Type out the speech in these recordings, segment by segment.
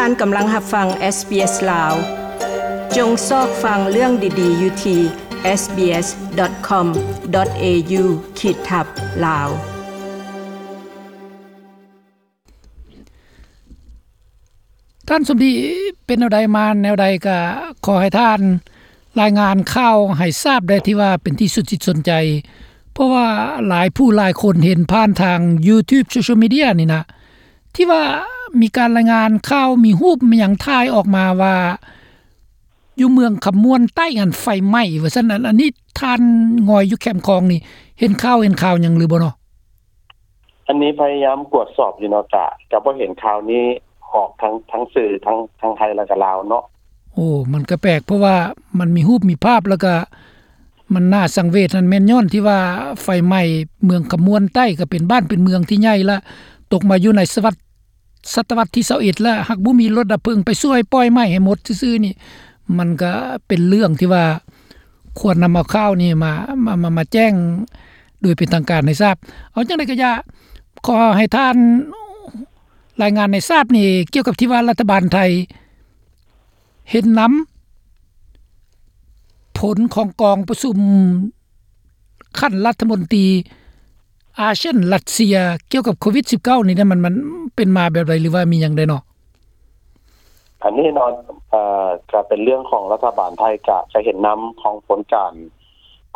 ທ່ານກຳລັງຮັບຟັງ SBS ລາວ. ຈົ່ງຊອກຟັງເລື່ອງດີໆຢູ່ທີ່ SBS.com.au ຂີດທັບ ລາວ. ທ່ານສົມດີ ເປັນແນວໃດມາແນວໃດ ກະຂໍໃຫ້ທ່ານລາຍງານຂ່າວໃຫ້ຊາບແດ່ ທີ່ວ່າເປັນທີ່ສຸດຈິດສົນໃຈ ເພາະວ່າຫຼາຍຜູ້ຫຼາຍຄົນເຫັນຜ່ານທາງ YouTube Social Media ນີ້ນະ ທີ່ວ່າມີການລາຍງານຂ່າວ ມີຮູບ ມີຫຍັງຖ່າຍອອກມາວ່າ ຢູ່ເມືອງຄຳມ່ວນໃຕ້ຫັ້ນໄຟໄໝ້ວ່າຊັ້ນ. ອັນ ອັນນີ້ທ່ານງອຍຢູ່ແຄມຂອງນີ້ ເຫັນຂ່າວ ເຫັນຂ່າວຫຍັງຫຼືບໍ່ເນາະ? ອັນນີ້ພະຍາຍາມກວດສອບຢູ່ເນາະ ກະ ກະບໍ່ເຫັນຂ່າວນີ້ອອກທາງ ທາງສື່ ທັງ ທັງໄທ ແລະກະລາວເນາະ. ໂອ້ ມັນກະແປກ ເພາະວ່າມັນມີຮູບມີພາບ ແລະກະມັນໜ້າສັງເວດຫັ້ນ ແມ່ນຍ້ອນທີ່ວ່າໄຟໄໝ້ເມືອງຄຳມ່ວນໃຕ້ ກະເປັນບ້ານເປັນເມືອງທີ່ໃຫຍ່ ແລະຕົກມາຢູ່ໃນສະວັດ ສະຕະວັດທີຊາວເອັດ ແລ້ວ ຫາກບໍ່ມີລົດດັບເພີງໄປຊ່ວຍປ່ອຍໄໝ້ໃຫ້ໝົດຊື່ໆນີ້ ມັນກະເປັນເລື່ອງທີ່ວ່າຄວນນຳເອົາຂ່າວນີ້ມາ ມາ ມາ ມາແຈ້ງໂດຍເປັນທາງການໃຫ້ຊາບ. ເອົາຈັ່ງໃດກະຢ່າ ຂໍໃຫ້ທ່ານລາຍງານໃຫ້ຊາບນີ້ ກ່ຽວກັບທີ່ວ່າລັດຖະບານໄທເຫັນນຳຜົນຂອງກອງປະຊຸມ ຂັ້ນລັດຖະມົນຕີອາຊຽນ-ຣັດເຊຍ ກ່ຽວກັບໂຄວິດສິບເກົ້ານີ້ ມັນ ມັນເປັນມາແບບໃດ ຫຼືວ່າມີຫຍັງແດ່ເນາະ? ອັນນີ້ເນາະ ເອີ ກະເປັນເລື່ອງຂອງລັດຖະບານໄທ ກະ ກະເຫັນນຳຂອງຜົນການ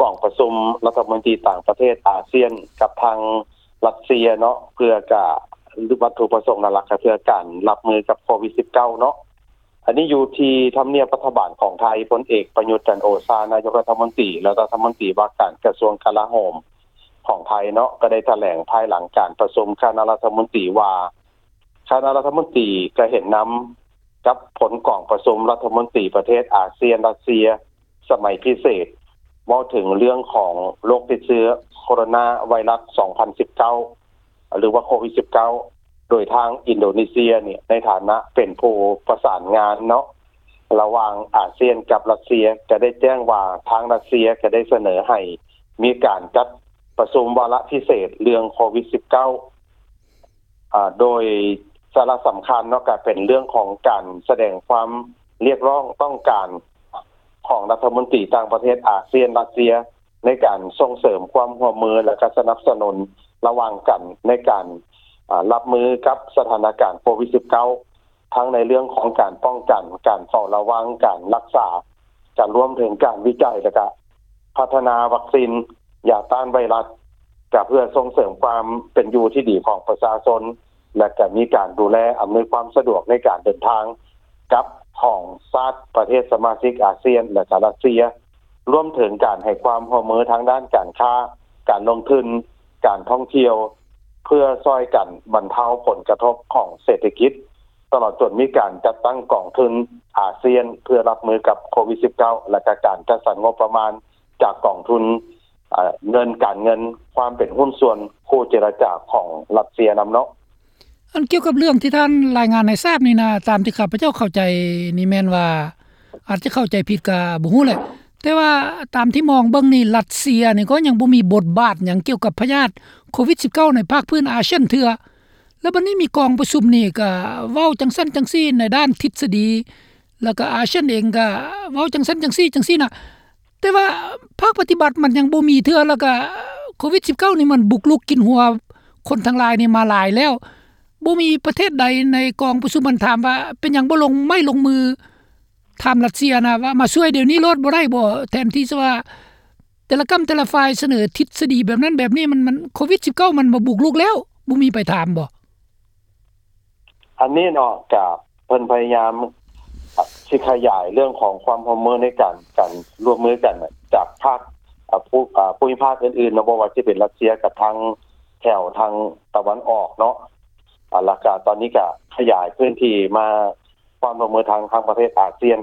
ກອງປະຊຸມລັດຖະມົນຕີຕ່າງປະເທດອາຊຽນກັບທາງຣັດເຊຍເນາະ ເພື່ອກະ ວັດຖຸປະສົງຫຼັກໆ ກະເພື່ອການຮັບມືກັບໂຄວິດສິບເກົ້າເນາະ. ອັນນີ້ຢູ່ທີ່ທຳນຽບລັດຖະບານຂອງໄທ ພົນເອກ ປະຍຸດ ຈັນໂອຊາ ນາຍົກລັດຖະມົນຕີ ແລະ ລັດຖະມົນຕີວ່າການກະຊວງກະລາໂຫມຂອງໄທເນາະ ກະໄດ້ຖະແຫຼງພາຍຫຼັງການປະຊຸມຄະນະລັດຖະມົນຕີວ່າ ຄະນະລັດຖະມົນຕີກະເຫັນນຳກັບຜົນກອງປະຊຸມລັດຖະມົນຕີປະເທດອາຊຽນ-ຣັດເຊຍ ສະໄໝພິເສດ ເວົ້າເຖິງເລື່ອງຂອງໂລກຕິດເຊື້ອໂຄໂຣນາໄວຣັສສອງພັນສິບເກົ້າ ຫຼືວ່າໂຄວິດສິບເກົ້າ ໂດຍທາງອິນໂດເນເຊຍນີ້ ໃນຖານະເປັນຜູ້ປະສານງານເນາະ ລະຫວ່າງອາຊຽນກັບຣັດເຊຍ ກະໄດ້ແຈ້ງວ່າທາງຣັດເຊຍກະໄດ້ສະເໜີໃຫ້ມີການຈັດປະຊຸມວາລະພິເສດເລື່ອງໂຄວິດສິບເກົ້າ ອາ ໂດຍສາລະສຳຄັນເນາະ ກະເປັນເລື່ອງຂອງການສະແດງຄວາມຮຽກຮ້ອງຕ້ອງການຂອງລັດຖະມົນຕີຕ່າງປະເທດອາຊຽນ-ຣັດເຊຍ ໃນການສົ່ງເສີມຄວາມຮ່ວມມື ແລະ ກະສະໜັບສະໜູນລະຫວ່າງກັນໃນການ ອາ ຮັບມືກັບສະຖານະການໂຄວິດສິບເກົ້າ ທັງໃນເລື່ອງຂອງການປ້ອງກັນ, ການເຝົ້າລະວັງ, ການຮັກສາ, ກະລວມເຖິງການວິໄຈ ແລະກະພັດທະນາວັກຊີນຢາຕ້ານໄວຣັສ ກະເພື່ອສົ່ງເສີມຄວາມເປັນຢູ່ທີ່ດີຂອງປະຊາຊົນ ແລະກະມີການດູແລອຳນວຍຄວາມສະດວກໃນການເດີນທາງກັບຂອງຊາດປະເທດສະມາຊິກອາຊຽນ ແລະກະຣັດເຊຍ ລວມເຖິງການໃຫ້ຄວາມຮ່ວມມືທາງດ້ານການຄ້າ, ການລົງທຶນ, ການທ່ອງທ່ຽວ ເພື່ອຊ່ອຍກັນບັນເທົາຜົນກະທົບຂອງເສດຖະກິດ ຕະຫຼອດຈົນມີການຈັດຕັ້ງກອງທຶນອາຊຽນເພື່ອຮັບມືກັບໂຄວິດສິບເກົ້າ ແລະກະການຈັດສັນງົບປະມານຈາກກອງທຶນ ເອີ ເງິນການເງິນ ຄວາມເປັນຫຸ້ນສ່ວນຄູ່ເຈລະຈາຂອງຣັດເຊຍນຳເນາະ. ອັນກ່ຽວກັບເລື່ອງທີ່ທ່ານລາຍງານໃຫ້ຊາບນີ້ນະ ຕາມທີ່ຂ້າພະເຈົ້າເຂົ້າໃຈນີ້ແມ່ນວ່າ ອາດຈະເຂົ້າໃຈຜິດກະບໍ່ຮູ້ແຫຼະ ແຕ່ວ່າຕາມທີ່ມອງເບິ່ງນີ້ ຣັດເຊຍນີ້ກໍຍັງບໍ່ມີບົດບາດຫຍັງກ່ຽວກັບພະຍາດໂຄວິດສິບເກົ້າໃນພາກພື້ນອາຊຽນເທື່ອ ແລ້ວບັດນີ້ມີກອງປະຊຸມນີ້ກະເວົ້າຈັ່ງຊັ້ນຈັ່ງຊີ້ໃນດ້ານທິດສະດີ ແລ້ວກະອາຊຽນເອງກະເວົ້າຈັ່ງຊັ້ນຈັ່ງຊີ້ຈັ່ງຊີ້ນະ ແຕ່ວ່າພາກປະຕິບັດມັນຍັງບໍ່ມີເທື່ອ ແລ້ວກະໂຄວິດສິບເກົ້ານີ້ມັນບຸກລຸກກິນຫົວຄົນທັງຫຼາຍນີ້ມາຫຼາຍແລ້ວ ບໍ່ມີປະເທດໃດໃນກອງປະຊຸມມັນຖາມວ່າເປັນຫຍັງບໍ່ລົງໄມ້ລົງມື ຖາມຣັດເຊຍນະວ່າມາຊ່ວຍດຽວນີ້ໂລດບໍ່ໄດ້ບໍ່? ແທນທີ່ຈະວ່າແຕ່ລະກ້ຳແຕ່ລະຝ່າຍສະເໜີທິດສະດີແບບນັ້ນແບບນີ້ ມັນ ມັນ ໂຄວິດສິບເກົ້າມັນມາບຸກລຸກແລ້ວ ບໍ່ມີໃຜຖາມບໍ່? ອັນນີ້ເນາະ ກະເພິ່ນພະຍາຍາມ ອາ ຊິຂະຫຍາຍເລື່ອງຂອງຄວາມຮ່ວມມືໃນການ ການຮ່ວມມືກັນຈາກພາກ ອາ ພູ ອາ ພູມິພາກອື່ນໆເນາະ ບໍ່ວ່າຊິເປັນຣັດເຊຍກັບທາງແຖວທາງຕາເວັນອອກເນາະ ອາ ແລ້ວກະຕອນນີ້ກະຂະຫຍາຍພື້ນທີ່ມາ ຄວາມຮ່ວມມືທາງ ທາງປະເທດອາຊຽນ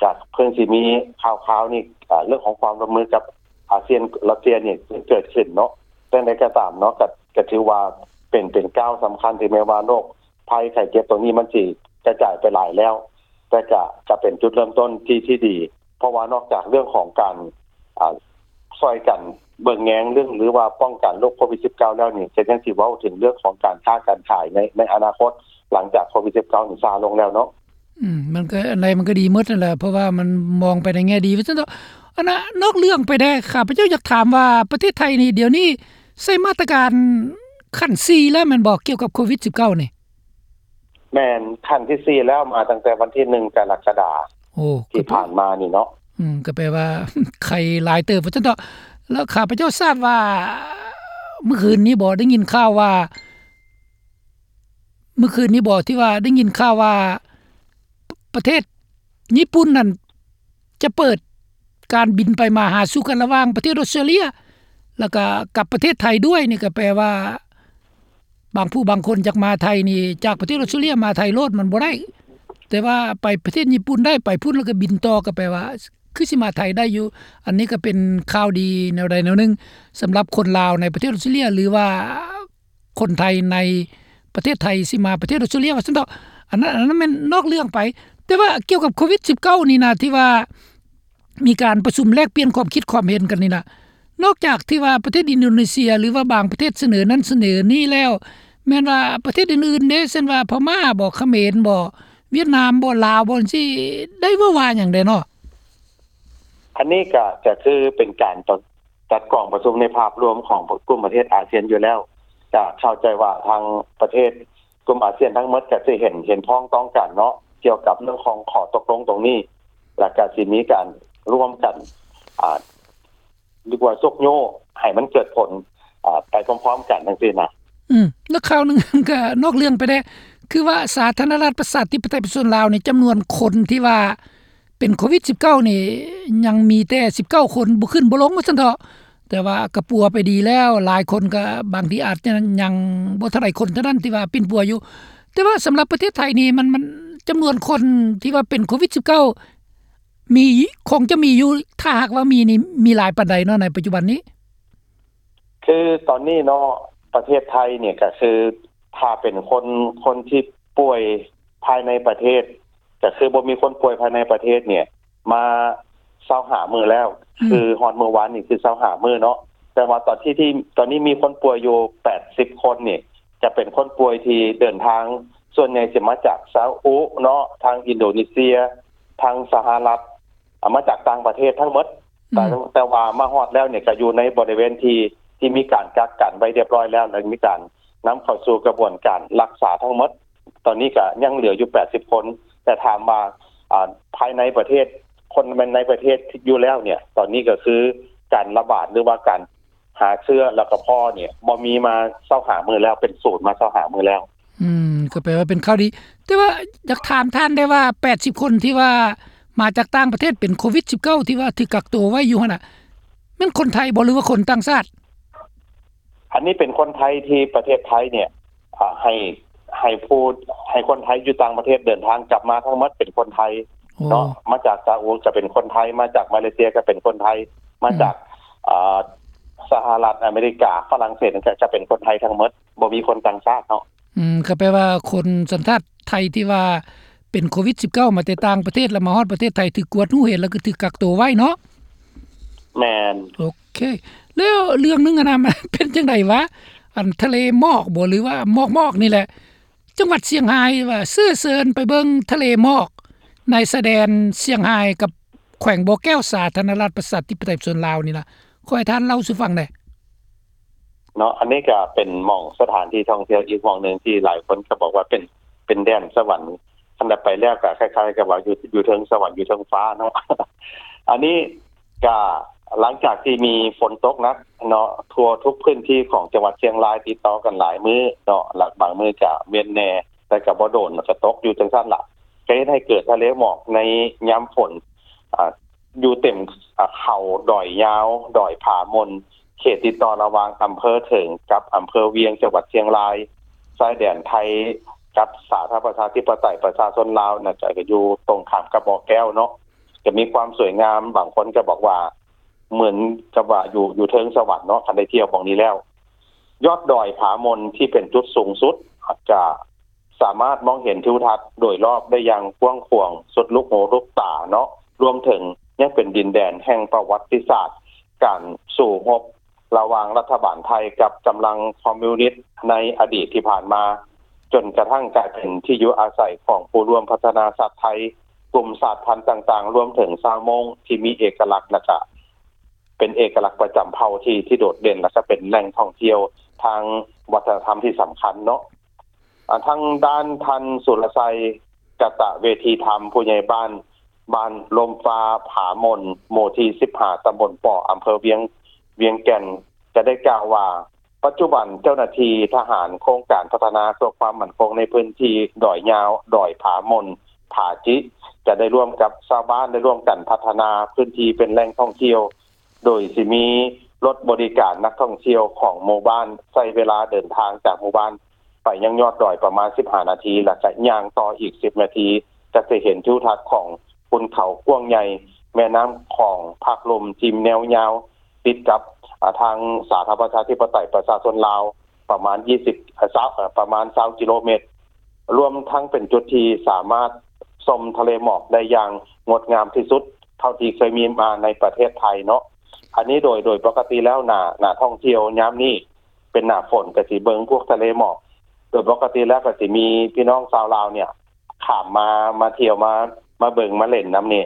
ຈາກເພິ່ນຊິມີຂ່າວໆນີ້ ເລື່ອງຂອງຄວາມຮ່ວມມືກັບອາຊຽນ ຣັດເຊຍນີ້ເກີດຂຶ້ນເນາະ. ຈັ່ງໃດກໍຕາມເນາະ ກໍ ກໍຖືວ່າເປັນ ເປັນກ້າວສຳຄັນ ເຖິງແມ່ນວ່າໂລກໄພໄຂ້ເຈັບຕົວນີ້ມັນຊິກະຈາຍໄປຫຼາຍແລ້ວ ແຕ່ກະ ກະເປັນຈຸດເລີ່ມຕົ້ນທີ່ ທີ່ດີ ເພາະວ່ານອກຈາກເລື່ອງຂອງການ ອາ ຊ່ອຍກັນເບິ່ງແຍງເລື່ອງ ຫຼືວ່າປ້ອງກັນໂລກໂຄວິດສິບເກົ້າແລ້ວນີ້ ກໍຍັງຊິເວົ້າເຖິງເລື່ອງຂອງການຄ້າການຂາຍໃນ ໃນອະນາຄົດ ຫຼັງຈາກໂຄວິດສິບເກົ້ານີ້ຊາລົງແລ້ວເນາະ. ອືມ ມັນກໍ ອັນໃດມັນກໍດີໝົດຫັ້ນແຫຼະ ເພາະວ່າມັນມອງໄປໃນແງ່ດີວ່າຊັ້ນເຖາະ. ອັນນະ ນອກເລື່ອງໄປແດ່ ຂ້າພະເຈົ້າຢາກຖາມວ່າ ປະເທດໄທນີ້ ດຽວນີ້ໃຊ້ມາດຕະການຂັ້ນສີ່ແລ້ວແມ່ນບໍ່ ກ່ຽວກັບໂຄວິດສິບເກົ້ານີ້? ແມ່ນ ຂັ້ນທີສີ່ແລ້ວ ມາຕັ້ງແຕ່ວັນທີໜຶ່ງ ກໍລະກະດາ ໂອ້ ທີ່ຜ່ານມານີ້ເນາະ. ອືມ ກໍແປວ່າ ໄຄຫຼາຍເຕີບວ່າຊັ້ນເຖາະ. ແລ້ວຂ້າພະເຈົ້າຊາບວ່າ ມື້ຄືນນີ້ບໍ ໄດ້ຍິນຂ່າວວ່າ ມື້ຄືນນີ້ບໍ ທີ່ວ່າໄດ້ຍິນຂ່າວວ່າ ປະເທດຍີ່ປຸ່ນນັ້ນ ຈະເປີດການບິນໄປມາຫາສູ່ກັນລະຫວ່າງປະເທດອົດສະຕຣາເລຍ ແລ້ວກະກັບປະເທດໄທດ້ວຍ. ນີ້ກໍແປວ່າ ບາງຜູ້ບາງຄົນຢາກມາໄທນີ້ ຈາກປະເທດອົດສະຕຣາເລຍມາໄທໂລດມັນບໍ່ໄດ້ ແຕ່ວ່າໄປປະເທດຍີ່ປຸ່ນໄດ້ ໄປພຸ້ນແລ້ວກໍບິນຕໍ່ ກໍແປວ່າ ຄືຊິມາໄທໄດ້ຢູ່. ອັນນີ້ກໍເປັນຂ່າວດີແນວໃດແນວໜຶ່ງ ສຳລັບຄົນລາວໃນປະເທດອົດສະຕຣາເລຍ ຫຼືວ່າ ຄົນໄທໃນປະເທດໄທຊິມາປະເທດອົດສະຕຣາເລຍວ່າຊັ້ນເຖາະ. ອັນນັ້ນ ອັນນັ້ນແມ່ນນອກເລື່ອງໄປ ແຕ່ວ່າກ່ຽວກັບໂຄວິດສິບເກົ້ານີ້ນະ ທີ່ວ່າມີການປະຊຸມແລກປ່ຽນຄວາມຄິດຄວາມເຫັນກັນນີ້ນະ ນອກຈາກທີ່ວ່າປະເທດອິນໂດເນເຊຍ ຫຼືວ່າບາງປະເທດສະເໜີນັ້ນສະເໜີນີ້ແລ້ວ ແມ່ນວ່າປະເທດອື່ນໆເດ້ ເຊັ່ນວ່າພະມ້າບໍ ຂະເໝນບໍ ຫວຽດນາມບໍ ລາວບໍ ຈັ່ງຊີ້ ໄດ້ເວົ້າວ່າຫຍັງແດ່ເນາະ? ອັນນີ້ກໍ ກໍຄືເປັນການ ຈັດກອງປະຊຸມໃນພາບລວມຂອງກຸ່ມປະເທດອາຊຽນຢູ່ແລ້ວ ຈະເຂົ້າໃຈວ່າທາງປະເທດກຸ່ມອາຊຽນທັງໝົດກໍຊິເຫັນ ເຫັນພ້ອງຕ້ອງກັນເນາະ ກ່ຽວກັບເລື່ອງຂອງຂໍ້ຕົກລົງຕົງນີ້ ແລ້ວກໍຊິມີການຮ່ວມກັນ ອາ ຫຼືວ່າຊຸກຍູ້ໃຫ້ມັນເກີດຜົນ ອາ ໄປພ້ອມໆກັນຈັ່ງຊີ້ນະ. ອືມ ແລ້ວຂ່າວໜຶ່ງ ກໍນອກເລື່ອງໄປແດ່ ຄືວ່າສາທາລະນະລັດປະຊາທິປະໄຕປະຊາຊົນລາວນີ້ ຈຳນວນຄົນທີ່ວ່າ ເປັນໂຄວິດສິບເກົ້ານີ້ ຍັງມີແຕ່ສິບເກົ້າຄົນ ບໍ່ຂຶ້ນບໍ່ລົງວ່າຊັ້ນເຖາະ. ແຕ່ວ່າກໍປົວໄປດີແລ້ວ ຫຼາຍຄົນກໍບາງທີອາດຈະຍັງບໍ່ເທົ່າໃດຄົນເທົ່ານັ້ນທີ່ວ່າປິ່ນປົວຢູ່. ແຕ່ວ່າສຳລັບປະເທດໄທນີ້ ມັນ ມັນ ຈຳນວນຄົນທີ່ວ່າເປັນໂຄວິດສິບເກົ້າ ມີ ຄົງຈະມີຢູ່ ຖ້າຫາກວ່າມີນີ້ ມີຫຼາຍປານໃດເນາະໃນປັດຈຸບັນນີ້? ຄືຕອນນີ້ເນາະ ປະເທດໄທນີ້ກໍຄື ຖ້າເປັນຄົນ ຄົນທີ່ປ່ວຍພາຍໃນປະເທດ ກໍຄືບໍ່ມີຄົນປ່ວຍພາຍໃນປະເທດນີ້ ມາຊາວຫ້າມື້ແລ້ວ ອືມ ຄືຮອດມື້ວານນີ້ຄືຊາວຫ້າມື້ເນາະ. ແຕ່ວ່າຕອນທີ່ ທີ່ຕອນນີ້ມີຄົນປ່ວຍຢູ່ແປດສິບຄົນນີ້ ຈະເປັນຄົນປ່ວຍທີ່ເດີນທາງ ສ່ວນໃຫຍ່ຊິມາຈາກຊາອຸເນາະ ທາງອິນໂດເນເຊຍ ທາງສະຫະລັດ ອາ ມາຈາກຕ່າງປະເທດທັງໝົດ. ອືມ ແຕ່ ແຕ່ວ່າມາຮອດແລ້ວນີ້ ກໍຢູ່ໃນບໍລິເວນທີ່ ທີ່ມີການກັກກັນໄວ້ຮຽບຮ້ອຍແລ້ວ ແລະ ມີການນຳເຂົ້າສູ່ກະບວນການລັກສາທັງໝົດ. ຕອນນີ້ກໍຍັງເຫຼືອຢູ່ແປດສິບຄົນ ແຕ່ຖາມວ່າ ອາ ພາຍໃນປະເທດ ຄົນໃນປະເທດຢູ່ແລ້ວນີ້ ຕອນນີ້ກໍຄືການລະບາດ ຫຼືວ່າການຫາເຊື້ອແລ້ວກໍພໍ້ນີ້ ບໍ່ມີມາຊາວຫ້າມື້ແລ້ວ ເປັນສູນມາຊາວຫ້າມື້ແລ້ວ. ອືມ ກໍແປວ່າເປັນຂ່າວດີ. ແຕ່ວ່າຢາກຖາມທ່ານໄດ້ວ່າ ແປດສິບຄົນທີ່ວ່າມາຈາກຕ່າງປະເທດ ເປັນໂຄວິດສິບເກົ້າ ທີ່ວ່າຖືກກັກໂຕໄວ້ຢູ່ຫັ້ນນະ ແມ່ນຄົນໄທບໍ່ ຫຼືວ່າຄົນຕ່າງຊາດ? ອັນນີ້ເປັນຄົນໄທທີ່ປະເທດໄທນີ້ ອາ ໃຫ້ ໃຫ້ຜູ້ ໃຫ້ຄົນໄທຢູ່ຕ່າງປະເທດເດີນທາງກັບມາທັງໝົດເປັນຄົນໄທ ໂອ້ ເນາະ. ມາຈາກຊາອຸກໍເປັນຄົນໄທ ມາຈາກມາເລເຊຍກໍເປັນຄົນໄທ ມາຈາກ ອືມ ອາ ສະຫະລັດອາເມລິກາ ຝຣັ່ງເສດ ກໍ ກໍເປັນຄົນໄທທັງໝົດ ບໍ່ມີຄົນຕ່າງຊາດເນາະ. ອືມ ກໍແປວ່າຄົນສັນຊາດໄທທີ່ວ່າເປັນໂຄວິດສິບເກົ້າ ມາແຕ່ຕ່າງປະເທດ ແລ້ວມາຮອດປະເທດໄທ ຖືກກວດຮູ້ເຫັນ ແລ້ວກໍຖືກກັກໂຕໄວ້ເນາະ. ແມ່ນ. ໂອເຄ ແລ້ວເລື່ອງໜຶ່ງຫັ້ນນະ ມັນເປັນຈັ່ງໃດວະ ອັນທະເລໝອກບໍ ຫຼືວ່າໝອກໆນີ້ແຫຼະ ຈັງຫວັດຊຽງຮາຍວ່າເຊື້ອເຊີນໄປເບິ່ງທະເລໝອກໃນຊາຍແດນຊຽງຮາຍກັບແຂວງບໍ່ແກ້ວ ສາທາລະນະລັດປະຊາທິປະໄຕປະຊາຊົນລາວນີ້ນະ ຂໍໃຫ້ທ່ານເລົ່າສູ່ຟັງແດ່. ເນາະ ອັນນີ້ກໍເປັນໝ່ອງສະຖານທີ່ທ່ອງທ່ຽວອີກໝ່ອງໜຶ່ງທີ່ຫຼາຍຄົນກໍບອກວ່າເປັນ ເປັນແດນສະຫວັນ ຄັນໄດ້ໄປແລ້ວກໍຄ້າຍໆກັບວ່າຢູ່ ຢູ່ເທິງສະຫວັນ ຢູ່ເທິງຟ້າເນາະ. ອັນນີ້ກໍຫຼັງຈາກທີ່ມີຝົນຕົກໜັກເນາະ ທົ່ວທຸກພື້ນທີ່ຂອງຈັງຫວັດຊຽງລາຍຕິດຕໍ່ກັນຫຼາຍມື້ເນາະ ແລະ ບາງມື້ກໍເວັ້ນແດ່ ແຕ່ກໍບໍ່ໂດນ ແລ້ວກໍຕົກຢູ່ຈັ່ງຊັ້ນລະ ກໍເຮັດໃຫ້ເກີດທະເລໝອກໃນຍາມຝົນ ອາ ຢູ່ເຕັມ ອາ ເຂົາດອຍຍາວ ດອຍຜາມົນ ເຂດຕິດຕໍ່ລະຫວ່າງອຳເພີເຖິງກັບອຳເພີວຽງ ຈັງຫວັດຊຽງລາຍ ຊາຍແດນໄທກັບສາທາລະນະລັດປະຊາທິປະໄຕປະຊາຊົນລາວນະ ຈະ ຈະຢູ່ຕົງຂ້າມກັບບໍ່ແກ້ວເນາະ ຈະມີຄວາມສວຍງາມ ບາງຄົນກໍບອກວ່າເໝືອນກັບວ່າຢູ່ ຢູ່ເທິງສະຫວັນເນາະ ຄັນໄດ້ທ່ຽວໝ່ອງນີ້ແລ້ວ. ຍອດດອຍຜາມົນທີ່ເປັນຈຸດສູງສຸດ ຈະ ສາມາດມອງເຫັນທິວທັດໂດຍລອບໄດ້ຢ່າງກວ້າງຂວາງ ສຸດລູກຫູລູກຕາເນາະ ລວມເຖິງຍັງເປັນດິນແດນແຫ່ງປະຫວັດຕິສາດການສູ້ຮົບລະຫວ່າງລັດຖະບານໄທກັບກຳລັງຄອມມິວນິດໃນອະດີດທີ່ຜ່ານມາ. ຈົນກະທັ້ງກາຍເປັນທີ່ຢູ່ອາໄສຂອງຜູ້ຮ່ວມພັດທະນາຊາດໄທ, ກຸ່ມຊາດພັນຕ່າງໆ, ລວມເຖິງຊາວມົ້ງທີ່ມີເອກະລັກ ແລະກະເປັນເອກະລັກປະຈຳເຜົ່າທີ່ ທີ່ໂດດເດັ່ນ ແລະກະເປັນແຫຼ່ງທ່ອງທ່ຽວທາງວັດທະນະທຳທີ່ສຳຄັນເນາະ. ອາ ທາງດ້ານທ່ານ ສຸລະໄຊ ກະຕະເວທີທຳ ຜູ້ໃຫຍ່ບ້ານ ບ້ານລົມຟ້າຜາມົນ ໝູ່ທີສິບຫ້າ ຕຳບົນປໍ ອຳເພີວຽງ ວຽງແກ່ນ ກະໄດ້ກ່າວວ່າ ປັດຈຸບັນເຈົ້າໜ້າທີ່ທະຫານໂຄງການພັດທະນາເພື່ອຄວາມໝັ້ນຄົງໃນພື້ນທີ່ດອຍຍາວ, ດອຍຜາມົນ, ຜາຈິ ຈະໄດ້ຮ່ວມກັບຊາວບ້ານ ໄດ້ຮ່ວມກັນພັດທະນາພື້ນທີ່ເປັນແຫຼ່ງທ່ອງທ່ຽວ ໂດຍຊິມີລົດບໍລິການນັກທ່ອງທ່ຽວຂອງໝູ່ບ້ານ ໃຊ້ເວລາເດີນທາງຈາກໝູ່ບ້ານໄປຍັງຍອດດອຍປະມານສິບຫ້ານາທີ ແລະກະຍ່າງຕໍ່ອີກສິບນາທີ ກະຈະເຫັນທິວທັດຂອງຄຸນເຂົາກວ້າງໃຫຍ່, ແມ່ນ້ຳຂອງພາກລຸ່ມທີ່ແນວຍາວ ຕິດກັບ ອາ ທາງສາທາລະນະລັດປະຊາທິປະໄຕປະຊາຊົນລາວ ປະມານຊາວ ເອີ ປະມານຊາວກິໂລແມັດ, ລວມທັງເປັນຈຸດທີ່ສາມາດຊົມທະເລໝອກໄດ້ຢ່າງງົດງາມທີ່ສຸດເທົ່າທີ່ເຄີຍມີມາໃນປະເທດໄທເນາະ. ອັນນີ້ໂດຍ ໂດຍປົກກະຕິແລ້ວໜ້າ ໜ້າທ່ອງທ່ຽວຍາມນີ້ເປັນໜ້າຝົນ ກະຊິເບິ່ງພວກທະເລໝອກ ໂດຍປົກກະຕິແລ້ວກະຊິມີພີ່ນ້ອງຊາວລາວເນ່ຍ ຂ້າມມາ ມາທ່ຽວ ມາ ມາເບິ່ງມາເຫຼັ້ນນຳນີ້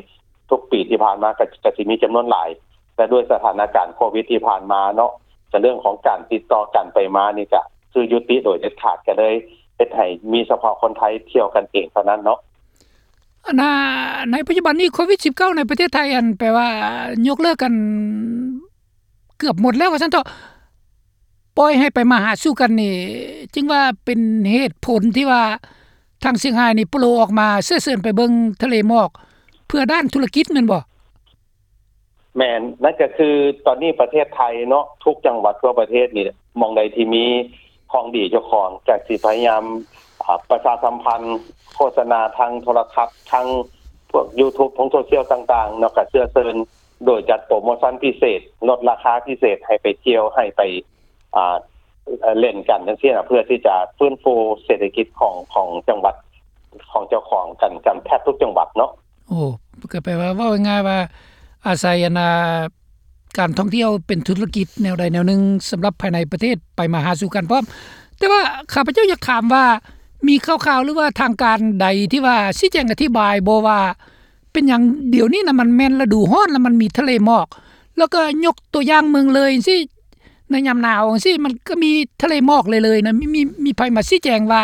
ທຸກປີທີ່ຜ່ານມາກະ ກະຊິມີຈຳນວນຫຼາຍ, ແຕ່ດ້ວຍສະຖານະການໂຄວິດທີ່ຜ່ານມາເນາະ ກະເລື່ອງຂອງການຕິດຕໍ່ການໄປມານີ້ກະຄືຢຸດຕິໂດຍເດັດຂາດ ກະເລີຍເຮັດໃຫ້ມີສະເພາະຄົນໄທທ່ຽວກັນເອງເທົ່ານັ້ນເນາະ. ອັນນ່າ ໃນປັດຈຸບັນນີ້ໂຄວິດສິບເກົ້າໃນປະເທດໄທ ອັນ ແປວ່າຍົກເລີກກັນເກືອບໝົດແລ້ວວ່າຊັ້ນເຖາະ. ປ່ອຍໃຫ້ໄປມາຫາສູ່ກັນນີ້ ຈຶ່ງວ່າເປັນເຫດຜົນທີ່ວ່າທາງຊຽງຮາຍນີ້ໂປໂລອອກມາເຊື້ອເຊີນໄປເບິ່ງທະເລໝອກ ເພື່ອດ້ານທຸລະກິດແມ່ນບໍ່? ແມ່ນ, ນັ້ນກະຄືຕອນນີ້ປະເທດໄທເນາະ ທຸກຈັງຫວັດທົ່ວປະເທດນີ້ ໝ່ອງໃດທີ່ມີຂອງດີເຈົ້າຂອງ ກະຊິພະຍາຍາມ ອາ ປະຊາສຳພັນ ໂຄສະນາທາງໂທລະທັດ ທາງພວກຢູທູບ ທາງໂຊຊຽວຕ່າງໆເນາະ ກະເຊື້ອເຊີນ ໂດຍຈັດໂປຣໂມຊັນພິເສດ ລົດລາຄາພິເສດໃຫ້ໄປທ່ຽວ ໃຫ້ໄປ ອ່າ ເອີ່ ຫຼິ້ນກັນຈັ່ງຊີ້ນະ ເພື່ອທີ່ຈະຟື້ນຟູເສດຖະກິດຂອງ ຂອງຈັງຫວັດ ຂອງເຈົ້າຂອງກັນ ກັນແທບທຸກຈັງຫວັດເນາະ. ໂອ້ ກໍແປວ່າ ເວົ້າງ່າຍໆວ່າ ອາໄສ ອັນ ອ່າ ການທ່ອງທ່ຽວເປັນທຸລະກິດແນວໃດແນວໜຶ່ງ ສຳລັບພາຍໃນປະເທດໄປມາຫາສູ່ກັນພ້ອມ. ແຕ່ວ່າຂ້າພະເຈົ້າຢາກຖາມວ່າ ມີຂ່າວໆ ຫຼືວ່າທາງການໃດທີ່ວ່າຊີ້ແຈງອະທິບາຍບໍ່ວ່າ ເປັນຫຍັງດຽວນີ້ນະ ມັນແມ່ນລະດູຮ້ອນ ແລ້ວມັນມີທະເລໝອກ ແລ້ວກໍຍົກຕົວຢ່າງເມືອງເລີຍຈັ່ງຊີ້ ໃນຍາມໜາວຈັ່ງຊີ້ ມັນກໍມີທະເລໝອກເລີຍໆນະ ມີ ມີ ມີໃຜມາຊີ້ແຈງວ່າ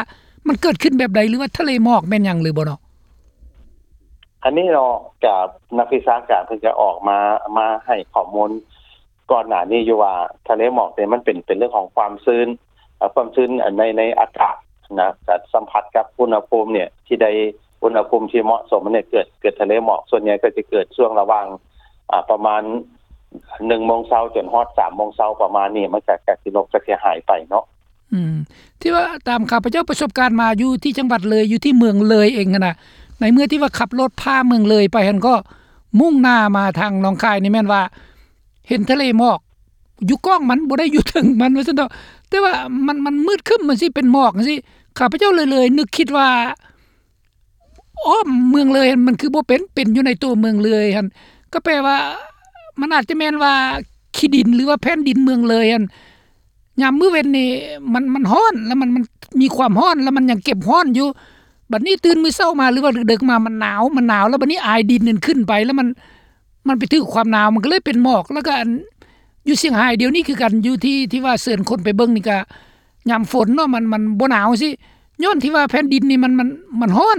ມັນເກີດຂຶ້ນແບບໃດ ຫຼືວ່າທະເລໝອກແມ່ນຫຍັງຫຼືບໍ່ເນາະ? ອັນນີ້ເນາະ ກະນັກວິຊາການເພິ່ນກະອອກມາ ມາໃຫ້ຂໍ້ມູນ ກ່ອນໜ້ານີ້ຢູ່ວ່າ ທະເລໝອກນີ້ມັນເປັນ ເປັນເລື່ອງຂອງຄວາມຊື້ນ ເອີ່ ຄວາມຊື້ນໃນ ໃນອາກາດນະ ກະສຳຜັດກັບອຸນຫະພູມເນ່ຍ ທີ່ໄດ້ອຸນຫະພູມທີ່ເໝາະສົມເນ່ຍ ເກີດ ເກີດທະເລໝອກ ສ່ວນໃຫຍ່ກໍຈະເກີດຊ່ວງລະຫວ່າງ ອາ ປະມານໜຶ່ງໂມງເຊົ້າຈົນຮອດສາມໂມງເຊົ້າ ປະມານນີ້ ມັນກະ ກະຊິລົບ ກະຊິຫາຍໄປເນາະ. ອືມ ທີ່ວ່າຕາມຂ້າພະເຈົ້າປະສົບການມາຢູ່ທີ່ຈັງຫວັດເລີຍ ຢູ່ທີ່ເມືອງເລີຍເອງຫັ້ນນະ ໃນເມື່ອທີ່ວ່າຂັບລົດຜ່າເມືອງເລີຍໄປຫັ້ນ ກໍມຸ່ງໜ້າມາທາງໜອງຄາຍນີ້ແມ່ນວ່າ ເຫັນທະເລໝອກຢູ່ກ້ອງມັນ ບໍ່ໄດ້ຢູ່ເທິງມັນວ່າຊັ້ນເຖາະ ແຕ່ວ່າມັນ ມັນມືດຄຶ້ມ ມັນຊິເປັນໝອກຈັ່ງຊີ້ ຂ້າພະເຈົ້າເລີຍ ເລີຍນຶກຄິດວ່າ ອ້ອມເມືອງເລີຍຫັ້ນ ມັນຄືບໍ່ເປັນ ເປັນຢູ່ໃນຕົວເມືອງເລີຍຫັ້ນ ກໍແປວ່າ ມັນອາດຈະແມ່ນວ່າຂີ້ດິນ ຫຼືວ່າແຜ່ນດິນເມືອງເລີຍຫັ້ນ ຍາມມື້ເວັນນີ້ມັນ ມັນຮ້ອນ ແລ້ວມັນ ມັນມີຄວາມຮ້ອນ ແລ້ວມັນຍັງເກັບຮ້ອນຢູ່ ບັດນີ້ຕື່ນມື້ເຊົ້າມາ ຫຼືວ່າດຶກໆມາ ມັນໜາວ ມັນໜາວ ແລ້ວບັດນີ້ອາຍດິນນັ້ນຂຶ້ນໄປ ແລ້ວມັນ ມັນໄປຖືກຄວາມໜາວ ມັນກໍເລີຍເປັນໝອກ ແລ້ວກໍອັນ ຢູ່ຊຽງຮາຍດຽວນີ້ຄືກັນ ຢູ່ທີ່ ທີ່ວ່າເຊີນຄົນໄປເບິ່ງນີ້ກໍຍາມຝົນເນາະ ມັນ ມັນບໍ່ໜາວຊີ້ ຍ້ອນທີ່ວ່າແຜ່ນດິນນີ້ມັນ ມັນ ມັນຮ້ອນ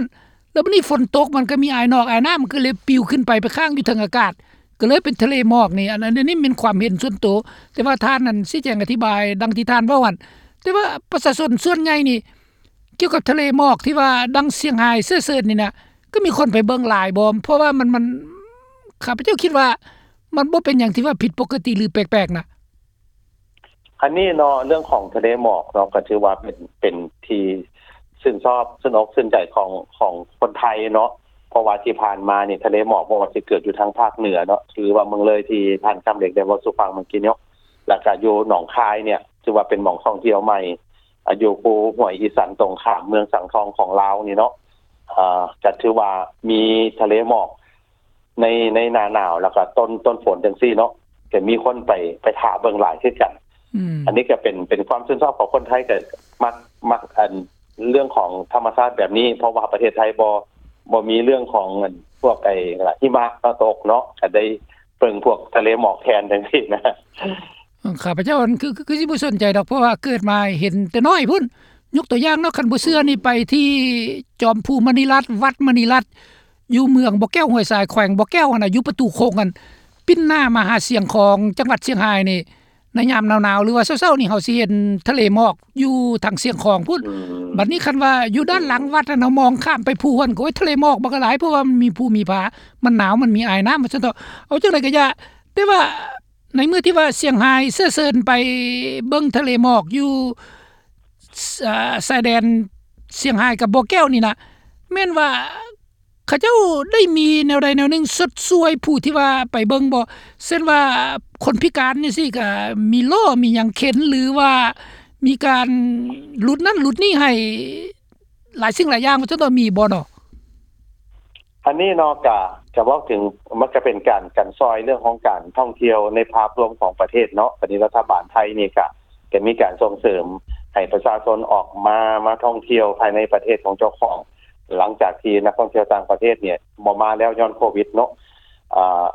ແລ້ວບັດນີ້ຝົນຕົກ ມັນກໍມີອາຍນອກອາຍນ້ຳ ມັນກໍເລີຍປິວຂຶ້ນໄປ ໄປຄ້າງຢູ່ເທິງອາກາດ ກໍເລີຍເປັນທະເລໝອກນີ້ ອັນ ອັນນີ້ແມ່ນຄວາມເຫັນສ່ວນໂຕ ແຕ່ວ່າທ່ານນັ້ນຊີ້ແຈງອະທິບາຍດັ່ງທີ່ທ່ານເວົ້າຫັ້ນ ແຕ່ວ່າປະຊາຊົນສ່ວນໃຫຍ່ນີ້ ກ່ຽວກັບທະເລໝອກທີ່ວ່າດັ່ງຊຽງຮາຍເຊີ້ເຊີນນີ້ນະ ກໍມີຄົນໄປເບິ່ງຫຼາຍບໍ່? ເພາະວ່າມັນ ມັນ ຂ້າພະເຈົ້າຄິດວ່າມັນບໍ່ເປັນຫຍັງທີ່ວ່າຜິດປົກກະຕິ ຫຼື ແປກໆນະ. ອັນນີ້ເນາະ ເລື່ອງຂອງທະເລໝອກເນາະ ກໍຖືວ່າເປັນ ເປັນທີ່ຊື່ນຊອບ ຊື່ນອົກຊື່ນໃຈຂອງ ຂອງຄົນໄທເນາະ ເພາະວ່າທີ່ຜ່ານມານີ້ ທະເລໝອກບໍ່ວ່າຊິເກີດຢູ່ທາງພາກເໜືອເນາະ ຫຼືວ່າເມືອງເລີຍທີ່ທ່ານຄຳເລັກໄດ້ເວົ້າສູ່ຟັງເມື່ອກີ້ເນາະ ແລ້ວກະຢູ່ໜອງຄາຍເນ່ຍ ຖືວ່າເປັນໝ່ອງທ່ອງທ່ຽວໃໝ່ ອາ ຢູ່ພູຫ້ວຍອີສັນ ຕົງຂ້າມເມືອງສັງທອງຂອງລາວນີ້ເນາະ ເອີ ກະຖືວ່າມີທະເລໝອກໃນ ໃນໜ້າໜາວ ແລ້ວກະຕົ້ນ ຕົ້ນຝົນຈັ່ງຊີ້ເນາະ ກະມີຄົນໄປ ໄປຖ້າເບິ່ງຫຼາຍຄືກັນ. ອືມ ອັນນີ້ກະເປັນ ເປັນຄວາມຊື່ນຊອບຂອງຄົນໄທ ກະມັກ ມັກ ອັນ ເລື່ອງຂອງທຳມະຊາດແບບນີ້ ເພາະວ່າປະເທດໄທບໍ່ ບໍ່ມີເລື່ອງຂອງອັນພວກໄອ້ຫິມະມາຕົກເນາະ ກໍໄດ້ເບິ່ງພວກທະເລໝອກແທນຈັ່ງຊີ້ນະ. ຂ້າພະເຈົ້າ ອັນ ຄື ຄື ຄືຊິບໍ່ສົນໃຈດອກ ເພາະວ່າເກີດມາເຫັນແຕ່ນ້ອຍພຸ້ນ. ຍົກຕົວຢ່າງເນາະ ຄັນບໍ່ເຊື່ອນີ້ ໄປທີ່ຈອມພູມະນີລັດ ວັດມະນີລັດ ຢູ່ເມືອງບໍ່ແກ້ວຫ້ວຍຊາຍ ແຂວງບໍ່ແກ້ວຫັ້ນນະ ຢູ່ປະຕູຄົງຫັ້ນ ປິ່ນໜ້າມາຫາຊຽງຂອງ ຈັງຫວັດຊຽງຮາຍນີ້ ໃນຍາມໜາວໆ ຫຼືວ່າເຊົ້າໆນີ້ ເຮົາຊິເຫັນທະເລໝອກຢູ່ທາງຊຽງຂອງພຸ້ນ. ອືມ ບັດນີ້ຄັນວ່າຢູ່ດ້ານຫຼັງວັດຫັ້ນ ເຮົາມອງຂ້າມໄປພູຫັ້ນ ໂອ້ຍ ທະເລໝອກບັກຫຼາຍ ເພາະວ່າມັນມີພູມີຜາ ມັນໜາວ ມັນມີອາຍນ້ຳ ວ່າຊັ້ນເຖາະ. ເອົາຈັ່ງໃດກໍຢ່າ ແຕ່ວ່າໃນເມື່ອທີ່ວ່າຊຽງຮາຍເຊື້ອເຊີນໄປເບິ່ງທະເລໝອກຢູ່ ຊ- ເອີ ຊາຍແດນຊຽງຮາຍກັບບໍ່ແກ້ວນີ້ນະ ແມ່ນວ່າເຂົາເຈົ້າໄດ້ມີແນວໃດແນວໜຶ່ງຊົດຊ່ວຍຜູ້ທີ່ວ່າໄປເບິ່ງບໍ່? ເຊັ່ນວ່າຄົນພິການຈັ່ງຊີ້ ກະມີລໍ້ມີຫຍັງເຂັນ ຫຼືວ່າມີການຫຼຸດນັ້ນຫຼຸດນີ້ໃຫ້ ຫຼາຍສິ່ງຫຼາຍຢ່າງ ວ່າຊັ້ນເຖາະ ມີບໍ່ເນາະ? ອັນນີ້ເນາະ ກະ ກະເວົ້າເຖິງ ມັນກະເປັນການ ການຊ່ອຍເລື່ອງຂອງການທ່ອງທ່ຽວໃນພາບລວມຂອງປະເທດເນາະ. ຕອນນີ້ລັດຖະບານໄທນີ້ກະ ກະມີການສົ່ງເສີມໃຫ້ປະຊາຊົນອອກມາ ມາທ່ອງທ່ຽວພາຍໃນປະເທດຂອງເຈົ້າຂອງ ຫຼັງຈາກທີ່ນັກທ່ອງທ່ຽວຕ່າງປະເທດນີ້ບໍ່ມາແລ້ວຍ້ອນໂຄວິດເນາະ. ອາ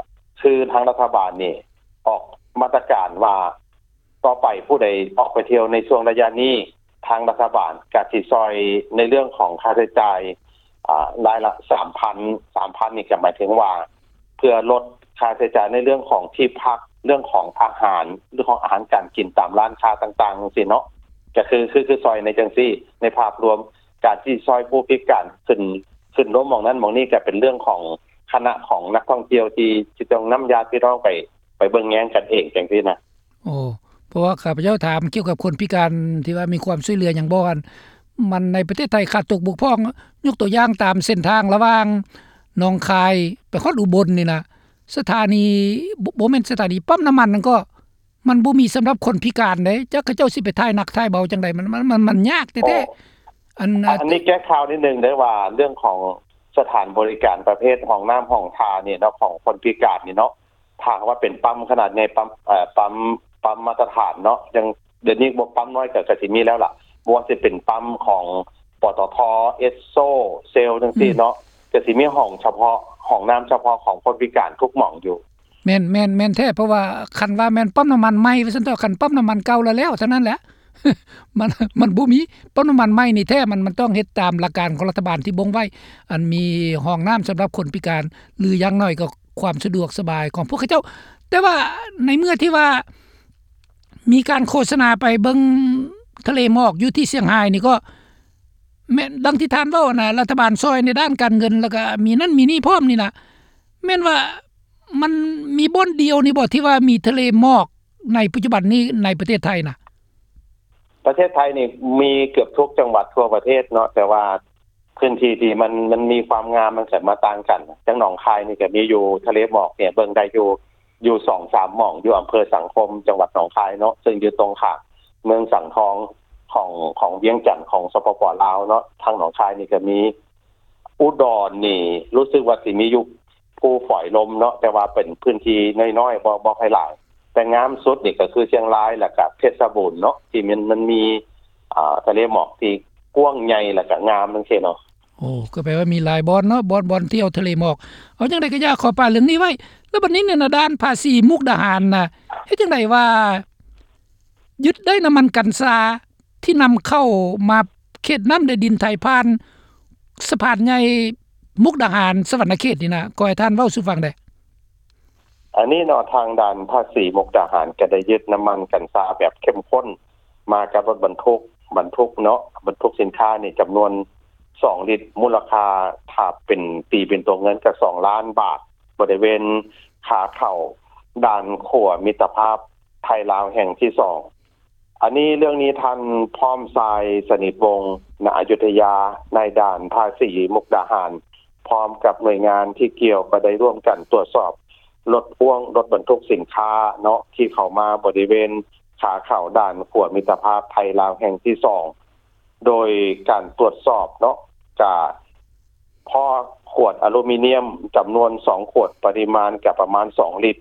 ຄືທາງລັດຖະບານນີ້ອອກມາດຕະການວ່າ ຕໍ່ໄປຜູ້ໃດອອກໄປທ່ຽວໃນຊ່ວງໄລຍະນີ້ ທາງລັດຖະບານກະຊິຊ່ອຍໃນເລື່ອງຂອງຄ່າໃຊ້ຈ່າຍ ອາ ລາຍລະສາມພັນ ສາມພັນນີ້ກະໝາຍເຖິງວ່າ ເພື່ອລົດຄ່າໃຊ້ຈ່າຍໃນເລື່ອງຂອງທີ່ພັກ ເລື່ອງຂອງອາຫານ ເລື່ອງຂອງອາຫານການກິນຕາມຮ້ານຄ້າຕ່າງໆ ຈັ່ງຊີ້ເນາະ. ກະຄື ຄື ຄືຊ່ອຍໃນຈັ່ງຊີ້ ໃນພາບລວມ ການຊິຊ່ອຍຜູ້ພິການຂຶ້ນ ຂຶ້ນລົງໝ່ອງນັ້ນໝ່ອງນີ້ ກະເປັນເລື່ອງຂອງຄະນະຂອງນັກທ່ອງທ່ຽວທີ່ ທີ່ຕ້ອງນຳຍາດພີ່ນ້ອງໄປ ໄປເບິ່ງແຍງກັນເອງຈັ່ງຊີ້ນະ. ໂອ້ ເພາະວ່າຂ້າພະເຈົ້າຖາມກ່ຽວກັບຄົນພິການທີ່ວ່າມີຄວາມຊ່ວຍເຫຼືອຫຍັງບໍ່ ອັນ ມັນໃນປະເທດໄທຂາດຕົກບົກຜ່ອງ ຍົກຕົວຢ່າງຕາມເສັ້ນທາງລະຫວ່າງໜອງຄາຍໄປຮອດອຸບົນນີ້ນະ ສະຖານີ ບໍ່ ບໍ່ແມ່ນສະຖານີ ປ້ຳນ້ຳມັນນັ້ນກໍ ມັນບໍ່ມີສຳລັບຄົນພິການເດ້ ຈັກເຂົາເຈົ້າຊິໄປຖ່າຍໜັກຖ່າຍເບົາຈັ່ງໃດ ມັນ ມັນ ມັນ ມັນຍາກແທ້ໆ. ໂອ້ ອັນ ອັນນີ້ແກ້ຂ່າວນິດໜຶ່ງເດີ້ ວ່າເລື່ອງຂອງສະຖານບໍລິການປະເພດຫ້ອງນ້ຳຫ້ອງທ່ານີ້ເນາະ ຂອງຄົນພິການນີ້ເນາະ ຖ້າຫາກວ່າເປັນປ້ຳຂະໜາດໃຫຍ່ ປ້ຳ ເອີ ປ້ຳ ປ້ຳມາດຕະຖານເນາະ ຢ່າງດຽວນີ້ບໍ່ ປ້ຳນ້ອຍກໍ ກໍຊິມີແລ້ວລະ ບໍ່ວ່າຊິເປັນປ້ຳຂອງ ປຕທ ເອສໂຊ ເຊວ ຈັ່ງຊີ້ເນາະ ອືມ ກໍຊິມີຫ້ອງສະເພາະ ຫ້ອງນ້ຳສະເພາະຂອງຄົນພິການທຸກໝ່ອງຢູ່. ແມ່ນ ແມ່ນ ແມ່ນແທ້ ເພາະວ່າຄັນວ່າແມ່ນປ້ຳນ້ຳມັນໃໝ່ວ່າຊັ້ນເຖາະ ຄັນປ້ຳນ້ຳມັນເກົ່າລະແລ້ວເທົ່ານັ້ນແຫຼະ ມັນ ມັນບໍ່ມີປ້ຳນ້ຳມັນໃໝ່ນີ້ແທ້ ມັນ ມັນຕ້ອງເຮັດຕາມຫຼັກການຂອງລັດຖະບານທີ່ບົ່ງໄວ້ ອັນມີຫ້ອງນ້ຳສຳລັບຄົນພິການ ຫຼືຢ່າງໜ້ອຍກໍຄວາມສະດວກສະບາຍຂອງພວກເຂົາເຈົ້າ. ແຕ່ວ່າໃນເມື່ອທີ່ວ່າມີການໂຄສະນາໄປເບິ່ງທະເລໝອກຢູ່ທີ່ຊຽງຮາຍນີ້ ກໍແມ່ນດັ່ງທີ່ທ່ານເວົ້ານະ ລັດຖະບານຊ່ອຍໃນດ້ານການເງິນ ແລ້ວກໍມີນັ້ນມີນີ້ພ້ອມນີ້ນະ ແມ່ນວ່າ ມັນມີບ່ອນດຽວນີ້ບໍ່ ທີ່ວ່າມີທະເລໝອກໃນປັດຈຸບັນນີ້ໃນປະເທດໄທນະ? ປະເທດໄທນີ້ມີເກືອບທຸກຈັງຫວັດທົ່ວປະເທດເນາະ ແຕ່ວ່າພື້ນທີ່ທີ່ມັນ ມັນມີຄວາມງາມມັນກໍມາຕ່າງກັນ. ຢ່າງໜອງຄາຍນີ້ກໍມີຢູ່ ທະເລໝອກນີ້ເບິ່ງໄດ້ຢູ່ ຢູ່ສອງສາມໝ່ອງ ຢູ່ອຳເພີສັງຄົມ ຈັງຫວັດໜອງຄາຍເນາະ ເຊິ່ງຢູ່ຕົງຂ້າມເມືອງສັງທອງຂອງ ຂອງວຽງຈັນ ຂອງ ສປປ ລາວເນາະ ທາງໜອງຄາຍນີ້ກໍມີ. ອຸດອນນີ້ຮູ້ສຶກວ່າຊິມີຢູ່ພູຝອຍລົມເນາະ ແຕ່ວ່າເປັນພື້ນທີ່ນ້ອຍໆ ບໍ່ ບໍ່ຄ່ອຍຫຼາຍ ແຕ່ງາມສຸດນີ້ກໍຄືຊຽງລາຍ ແລ້ວກໍເພັດຊະບູນເນາະ ທີ່ມັນ ມັນມີ ອ່າ ທະເລໝອກທີ່ກວ້າງໃຫຍ່ ແລ້ວກໍງາມຈັ່ງຊີ້ເນາະ. ໂອ້ ກໍແປວ່າມີຫຼາຍບ່ອນເນາະ ບ່ອນ ບ່ອນທ່ຽວທະເລໝອກ. ເອົາຈັ່ງໃດກໍຢ່າ ຂໍປະເລື່ອງນີ້ໄວ້ ແລ້ວບັດນີ້ນີ້ນະ ດ່ານພາສີມຸກດາຫານນະ ເຮັດຈັ່ງໃດວ່າ ຍຶດໄດ້ນ້ຳມັນກັນຊາທີ່ນຳເຂົ້າມາເຂດນ້ຳແດນດິນໄທ ຜ່ານສະພານໃຫຍ່ມຸກດາຫານ ສະຫວັນນະເຂດນີ້ນະ ຂໍໃຫ້ທ່ານເວົ້າສູ່ຟັງແດ່. ອັນນີ້ເນາະ ທາງດ່ານພາສີມຸກດາຫານກໍໄດ້ຍຶດນ້ຳມັນກັນຊາແບບເຂັ້ມຂຸ້ນມາກັບລົດບັນທຸກ ບັນທຸກເນາະ ບັນທຸກສິນຄ້ານີ້ຈຳນວນສອງລິດ ມູນລະຄ່າ ຖ້າເປັນ ຕີເປັນຕົວເງິນກໍສອງລ້ານບາດ ບໍລິເວນຂາເຂົ້າດ່ານຂົວມິດຕະພາບໄທລາວແຫ່ງທີສອງ. ອັນນີ້ ເລື່ອງນີ້ ທ່ານ ພ້ອມຊາຍ ສະໜິດວົງ ນະອະຍຸດທະຍາ ນາຍດ່ານພາສີມຸກດາຫານ ພ້ອມກັບໜ່ວຍງານທີ່ກ່ຽວ ກໍໄດ້ຮ່ວມກັນຕວດສອບລົດພໍ່ວງ ລົດບັນທຸກສິນຄ້າເນາະ ທີ່ເຂົ້າມາບໍລິເວນຂາເຂົ້າດ່ານຂົວມິດຕະພາບໄທລາວແຫ່ງທີສອງ ໂດຍການຕວດສອບເນາະ ກະ ພໍ້ຂວດອາລູມີນຽມຈຳນວນສອງຂວດ ປະລິມານກະປະມານສອງລິດ,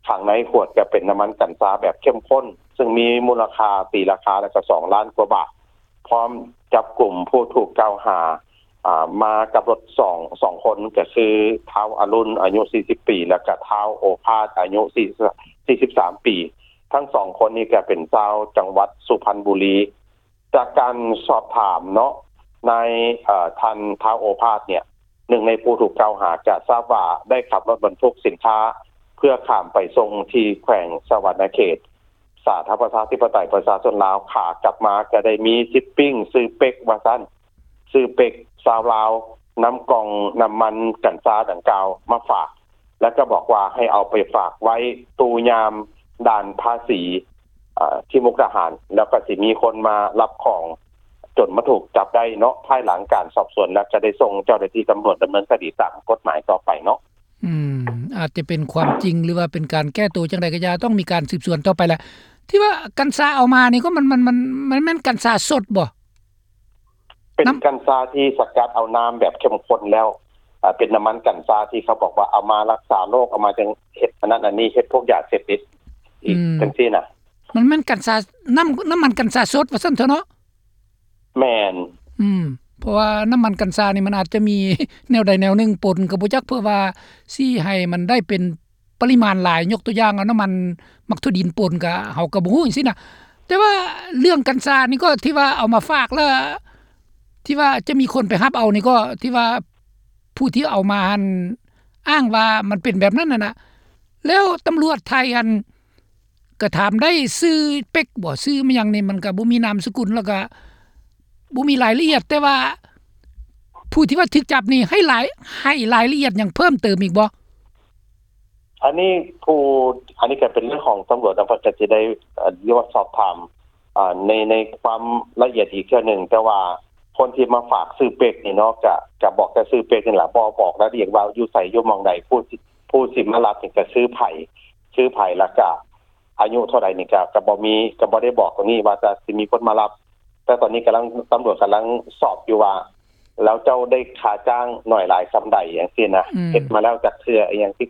ຂ້າງໃນຂວດກະເປັນນ້ຳມັນກັນຊາແບບເຂັ້ມຂຸ້ນ ເຊິ່ງມີມູນລະຄ່າ ຕີລາຄາແລ້ວກະສອງລ້ານກວ່າບາດ, ພ້ອມ ຈັບກຸມຜູ້ຖືກກ່າວຫາ ອ່າ ມາກັບລົດສອງ ສອງຄົນ ກໍຄືທ້າວອະລຸນ ອາຍຸສີ່ສິບປີ ແລ້ວກໍທ້າວໂອພາດ ອາຍຸສີ່ ສີ່ສິບສາມປີ. ທັງສອງຄົນນີ້ກໍເປັນຊາວຈັງຫວັດສຸພັນບູລີ. ຈາກການສອບຖາມເນາະ ນາຍ ເອີ ທ່ານທ້າວໂອພາດເນ່ຍ ໜຶ່ງໃນຜູ້ຖືກກ່າວຫາ ກໍຊາບວ່າໄດ້ຂັບລົດບັນທຸກສິນຄ້າ ເພື່ອຂ້າມໄປສົ່ງທີ່ແຂວງສະຫວັນນະເຂດ ສາທາລະນະລັດປະຊາທິປະໄຕປະຊາຊົນລາວ. ຂາກັບມາກໍໄດ້ມີຊິບປິ້ງຊື່ເປັກວ່າຊັ້ນ, ຊື່ເປັກຊາວລາວ ນຳກ່ອງນ້ຳມັນກັນຊາດັ່ງກ່າວມາຝາກ ແລ້ວກໍບອກວ່າໃຫ້ເອົາໄປຝາກໄວ້ຕູ້ຍາມດ່ານພາສີ ເອີ ທີ່ມຸກດາຫານ ແລ້ວກໍຊິມີຄົນມາຮັບຂອງ ຈົນມາຖືກຈັບໄດ້ເນາະ. ພາຍຫຼັງການສອບສວນແລ້ວ ຈະໄດ້ສົ່ງເຈົ້າໜ້າທີ່ຕຳຫຼວດດຳເນີນຄະດີຕາມກົດໝາຍຕໍ່ໄປເນາະ. ອືມ ອາດຈະເປັນຄວາມຈິງ ຫຼືວ່າເປັນການແກ້ໂຕຈັ່ງໃດກໍຢ່າ ຕ້ອງມີການສືບສວນຕໍ່ໄປແຫຼະ. ທີ່ວ່າກັນຊາເອົາມານີ້ກໍມັນ ມັນ ມັນ ມັນແມ່ນກັນຊາສົດບໍ່? ເປັນ ນ້ຳ ກັນຊາທີ່ສະກັດເອົານ້ຳແບບເຂັ້ມຂຸ້ນແລ້ວ ເປັນນ້ຳມັນກັນຊາທີ່ເຂົາບອກວ່າເອົາມາລັກສາໂລກ ເອົາມາຈັ່ງເຮັດອັນນັ້ນອັນນີ້ ເຮັດພວກຢາເສບຕິດອີກ ອືມ ຈັ່ງຊີ້ນະ. ມັນແມ່ນກັນຊາ ນ້ຳ ນ້ຳມັນກັນຊາສົດວ່າຊັ້ນເຖາະເນາະ? ແມ່ນ. ອືມ ເພາະວ່ານ້ຳມັນກັນຊານີ້ມັນອາດຈະມີແນວໃດແນວໜຶ່ງປົນກໍບໍ່ຈັກ ເພື່ອວ່າຊິໃຫ້ມັນໄດ້ເປັນ ປະລິມານຫຼາຍ, ຍົກຕົວຢ່າງເອົານ້ຳມັນໝາກຖົ່ວດິນປົນ ກະເຮົາກະບໍ່ຮູ້ຈັ່ງຊີ້ນະ. ແຕ່ວ່າເລື່ອງກັນຊານີ້ກໍທີ່ວ່າເອົາມາຝາກ ແລ້ວທີ່ວ່າຈະມີຄົນໄປຮັບເອົານີ້ ກໍທີ່ວ່າຜູ້ທີ່ເອົາມາຫັ້ນອ້າງວ່າມັນເປັນແບບນັ້ນຫັ້ນນະ. ແລ້ວຕຳຫຼວດໄທຫັ້ນກະຖາມໄດ້ຊື່ເປັກບໍ່ ຊື່ມາຫຍັງນີ້ ມັນກະບໍ່ມີນາມສະກຸນ ແລ້ວກະ ບໍ່ມີລາຍລະອຽດ, ແຕ່ວ່າຜູ້ທີ່ວ່າຖືກຈັບນີ້ໃຫ້ລາຍ ໃຫ້ລາຍລະອຽດຫຍັງເພີ່ມເຕີມອີກບໍ່? ອັນນີ້ຜູ້ ອັນນີ້ກໍເປັນເລື່ອງຂອງຕຳຫຼວດເນາະ ເພິ່ນກໍຊິໄດ້ ເອີ ເອີ້ນວ່າສອບຖາມ ເອີ ໃນ ໃນຄວາມລະອຽດອີກເທື່ອໜຶ່ງ, ແຕ່ວ່າຄົນທີ່ມາຝາກຊື່ເປັກນີ້ເນາະ ກໍ ກໍບອກແຕ່ຊື່ເປັກນີ້ລະ ບໍ່ບອກລາຍລະອຽດວ່າຢູ່ໃສ ຢູ່ໝ່ອງໃດ, ຜູ້ ຜູ້ຊິມາຮັບນີ້ກໍຊື່ໃຜ ຊື່ໃຜ ແລ້ວກໍ ອາຍຸເທົ່າໃດນີ້ ກະ ກະບໍ່ມີ ກະບໍ່ໄດ້ບອກຕົງນີ້ວ່າຈະ ຊິມີຄົນມາຮັບ, ແຕ່ຕອນນີ້ກຳລັງ ຕຳຫຼວດກຳລັງສອບຢູ່ວ່າ ແລ້ວເຈົ້າໄດ້ຄ່າຈ້າງໜ້ອຍຫຼາຍສ່ຳໃດ ຈັ່ງຊີ້ນະ, ອືມ ເຮັດມາແລ້ວຈັກເທື່ອ ອີ່ຫຍັງທີ່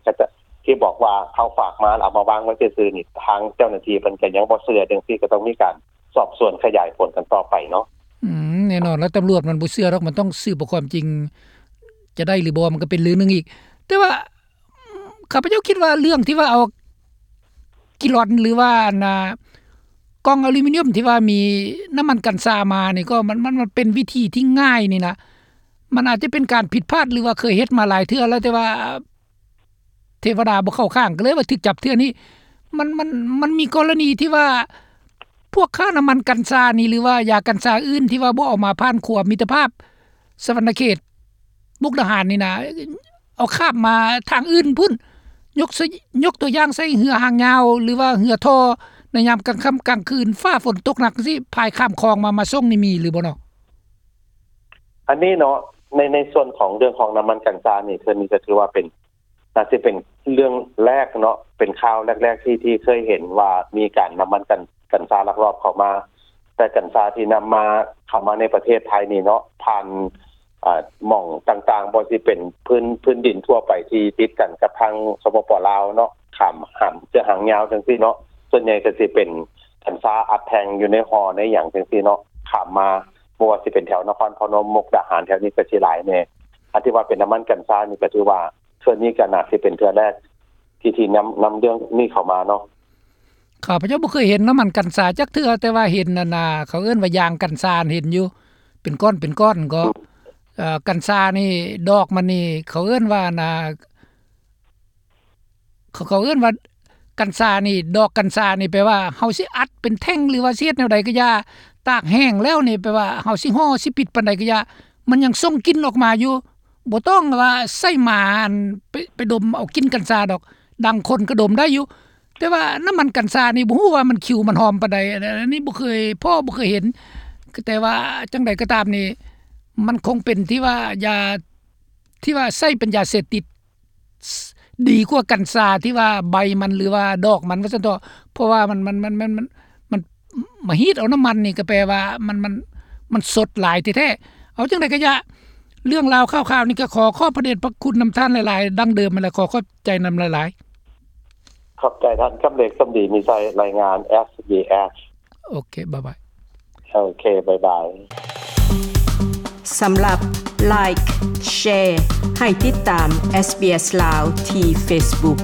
ທີ່ບອກວ່າເຂົາຝາກມາ ແລ້ວເອົາມາວາງໄວ້ຊື່ໆນີ້ ທາງເຈົ້າໜ້າທີ່ເພິ່ນກະຍັງບໍ່ເຊື່ອ ຈັ່ງຊີ້ກະຕ້ອງມີການສອບສວນຂະຫຍາຍຜົນກັນຕໍ່ໄປເນາະ. ອືມ ແນ່ນອນລະ ຕຳຫຼວດມັນບໍ່ເຊື່ອດອກ ມັນຕ້ອງສືບເອົາຄວາມຈິງ ຈະໄດ້ຫຼືບໍ່ ມັນກະເປັນເລື່ອງໜຶ່ງອີກ, ແຕ່ວ່າ ຂ້າພະເຈົ້າຄິດວ່າເລື່ອງທີ່ວ່າເອົາກີລອນ ຫຼືວ່າອັນນ່າ ກ່ອງອາລູມິນຽມທີ່ວ່າມີນ້ຳມັນກັນຊາມານີ້ ກໍມັນ ມັນ ມັນເປັນວິທີທີ່ງ່າຍນີ້ນະ, ມັນອາດຈະເປັນການຜິດພາດ ຫຼືວ່າເຄີຍເຮັດມາຫຼາຍເທື່ອແລ້ວ ແຕ່ວ່າເທວະດາບໍ່ເຂົ້າຂ້າງ ກໍເລີຍວ່າຖືກຈັບເທື່ອນີ້. ມັນ ມັນ ມັນມີກໍລະນີທີ່ວ່າ ພວກຄ້ານ້ຳມັນກັນຊານີ້ ຫຼືວ່າຢາກັນຊາອື່ນທີ່ວ່າບໍ່ເອົາມາຜ່ານຂົວມິດຕະພາບສະຫວັນນະເຂດ ມຸກດາຫານນີ້ນະ ເອົາຂ້າມມາທາງອື່ນພຸ້ນ, ຍົກ ຍົກຕົວຢ່າງໃສ່ເຮືອຫາງຍາວ ຫຼືວ່າເຮືອທໍ່ ໃນຍາມກາງຄ່ຳກາງຄືນ ຟ້າຝົນຕົກໜັກຈັ່ງຊີ້ ພາຍຂ້າມຄອງມາ ມາສົ່ງນີ້ມີຫຼືບໍ່ເນາະ? ອັນນີ້ເນາະ ໃນ ໃນສ່ວນຂອງເລື່ອງຂອງນ້ຳມັນກັນຊານີ້ ເທື່ອນີ້ກໍຖືວ່າເປັນ ໜ້າຊິເປັນເລື່ອງແລກເນາະ ເປັນຂ່າວແລກໆ ທີ່ ທີ່ເຄີຍເຫັນວ່າມີການນຳມັນກັນ ກັນຊາລັກລອບເຂົ້າມາ, ແຕ່ກັນຊາທີ່ນຳມາ ເຂົ້າມາໃນປະເທດໄທນີ້ເນາະ ຜ່ານ ອ່າ ໝ່ອງຕ່າງໆ ບໍ່ວ່າຊິເປັນພື້ນ ພື້ນດິນທົ່ວໄປທີ່ຕິດກັນກັບທາງ ສປປ ລາວເນາະ ຂ້າມຫາງ ເຊືອກຫາງຍາວຈັ່ງຊີ້ເນາະ, ສ່ວນໃຫຍ່ກໍຊິເປັນກັນຊາອັດແທ່ງຢູ່ໃນຫໍ່ໃນຫຍັງຈັ່ງຊີ້ເນາະ ຂ້າມມາ ບໍ່ວ່າຊິເປັນແຖວນະຄອນພະນົມ ມຸກດາຫານ ແຖວນີ້ກໍຊິຫຼາຍແດ່. ອັນທີ່ວ່າເປັນນ້ຳມັນກັນຊານີ້ກໍຖືວ່າ ເທື່ອນີ້ກໍໜ້າຊິເປັນເທື່ອແລກທີ່ ທີ່ນຳ ນຳເລື່ອງນີ້ເຂົ້າມາເນາະ. ຂ້າພະເຈົ້າບໍ່ເຄີຍເຫັນນ້ຳມັນກັນຊາຈັກເທື່ອ, ແຕ່ວ່າເຫັນອັນນ່າ ເຂົາເອີ້ນວ່າຢາງກັນຊາ ເຫັນຢູ່ ເປັນກ້ອນເປັນກ້ອນກໍ ອືມ ເອີ ກັນຊານີ້ ດອກມັນນີ້ ເຂົາເອີ້ນວ່າອັນນ່າ ເຂົາ ເຂົາເອີ້ນວ່າກັນຊານີ້ ດອກກັນຊານີ້ ແປວ່າເຮົາຊິອັດເປັນແທ່ງ ຫຼືວ່າຊິເຮັດແນວໃດກໍຢ່າ ຕາກແຫ້ງແລ້ວນີ້ ແປວ່າເຮົາຊິຫໍ່ຊິປິດປານໃດກໍຢ່າ ມັນຍັງສົ່ງກິ່ນອອກມາຢູ່. ບໍ່ຕ້ອງວ່າໃຊ້ໝາອັນ ໄປ ໄປດົມເອົາກິ່ນກັນຊາດອກ, ດັງຄົນກໍດົມໄດ້ຢູ່, ແຕ່ວ່ານ້ຳມັນກັນຊານີ້ ບໍ່ຮູ້ວ່າມັນຂິວມັນຫອມປານໃດ, ອັນ ອັນນີ້ບໍ່ເຄີຍພໍ້ ບໍ່ເຄີຍເຫັນ. ແຕ່ວ່າຈັ່ງໃດກໍຕາມນີ້ ມັນຄົງເປັນທີ່ວ່າຢາ ທີ່ວ່າໃຊ້ເປັນຢາເສບຕິດ ດີກວ່າກັນຊາທີ່ວ່າໃບມັນ ຫຼືວ່າດອກມັນວ່າຊັ້ນເຖາະ, ເພາະວ່າມັນ ມັນ ມັນ ມັນ ມັນ ມັນມາຮີດເອົານ້ຳມັນນີ້ ກໍແປວ່າມັນ ມັນ ມັນສົດຫຼາຍແທ້ໆ. ເອົາຈັ່ງໃດກໍຢ່າ ເລື່ອງລາວຂ່າວໆນີ້ ກໍຂໍຂອບພະເດດພະຄຸນນຳທ່ານຫຼາຍໆ ດັ່ງເດີມຫັ້ນແຫຼະ, ຂໍຂອບໃຈນຳຫຼາຍໆ. ຂອບໃຈທ່ານ ກຳເລັກ ສົມດີມີໄຊ ລາຍງານ ເອສບີເອສ. ໂອເຄ ບາຍບາຍ. ໂອເຄ ບາຍບາຍ. ສຳລັບ Like Share ໃຫ້ຕິດຕາມ SBS ລາວ ທີ່ Facebook.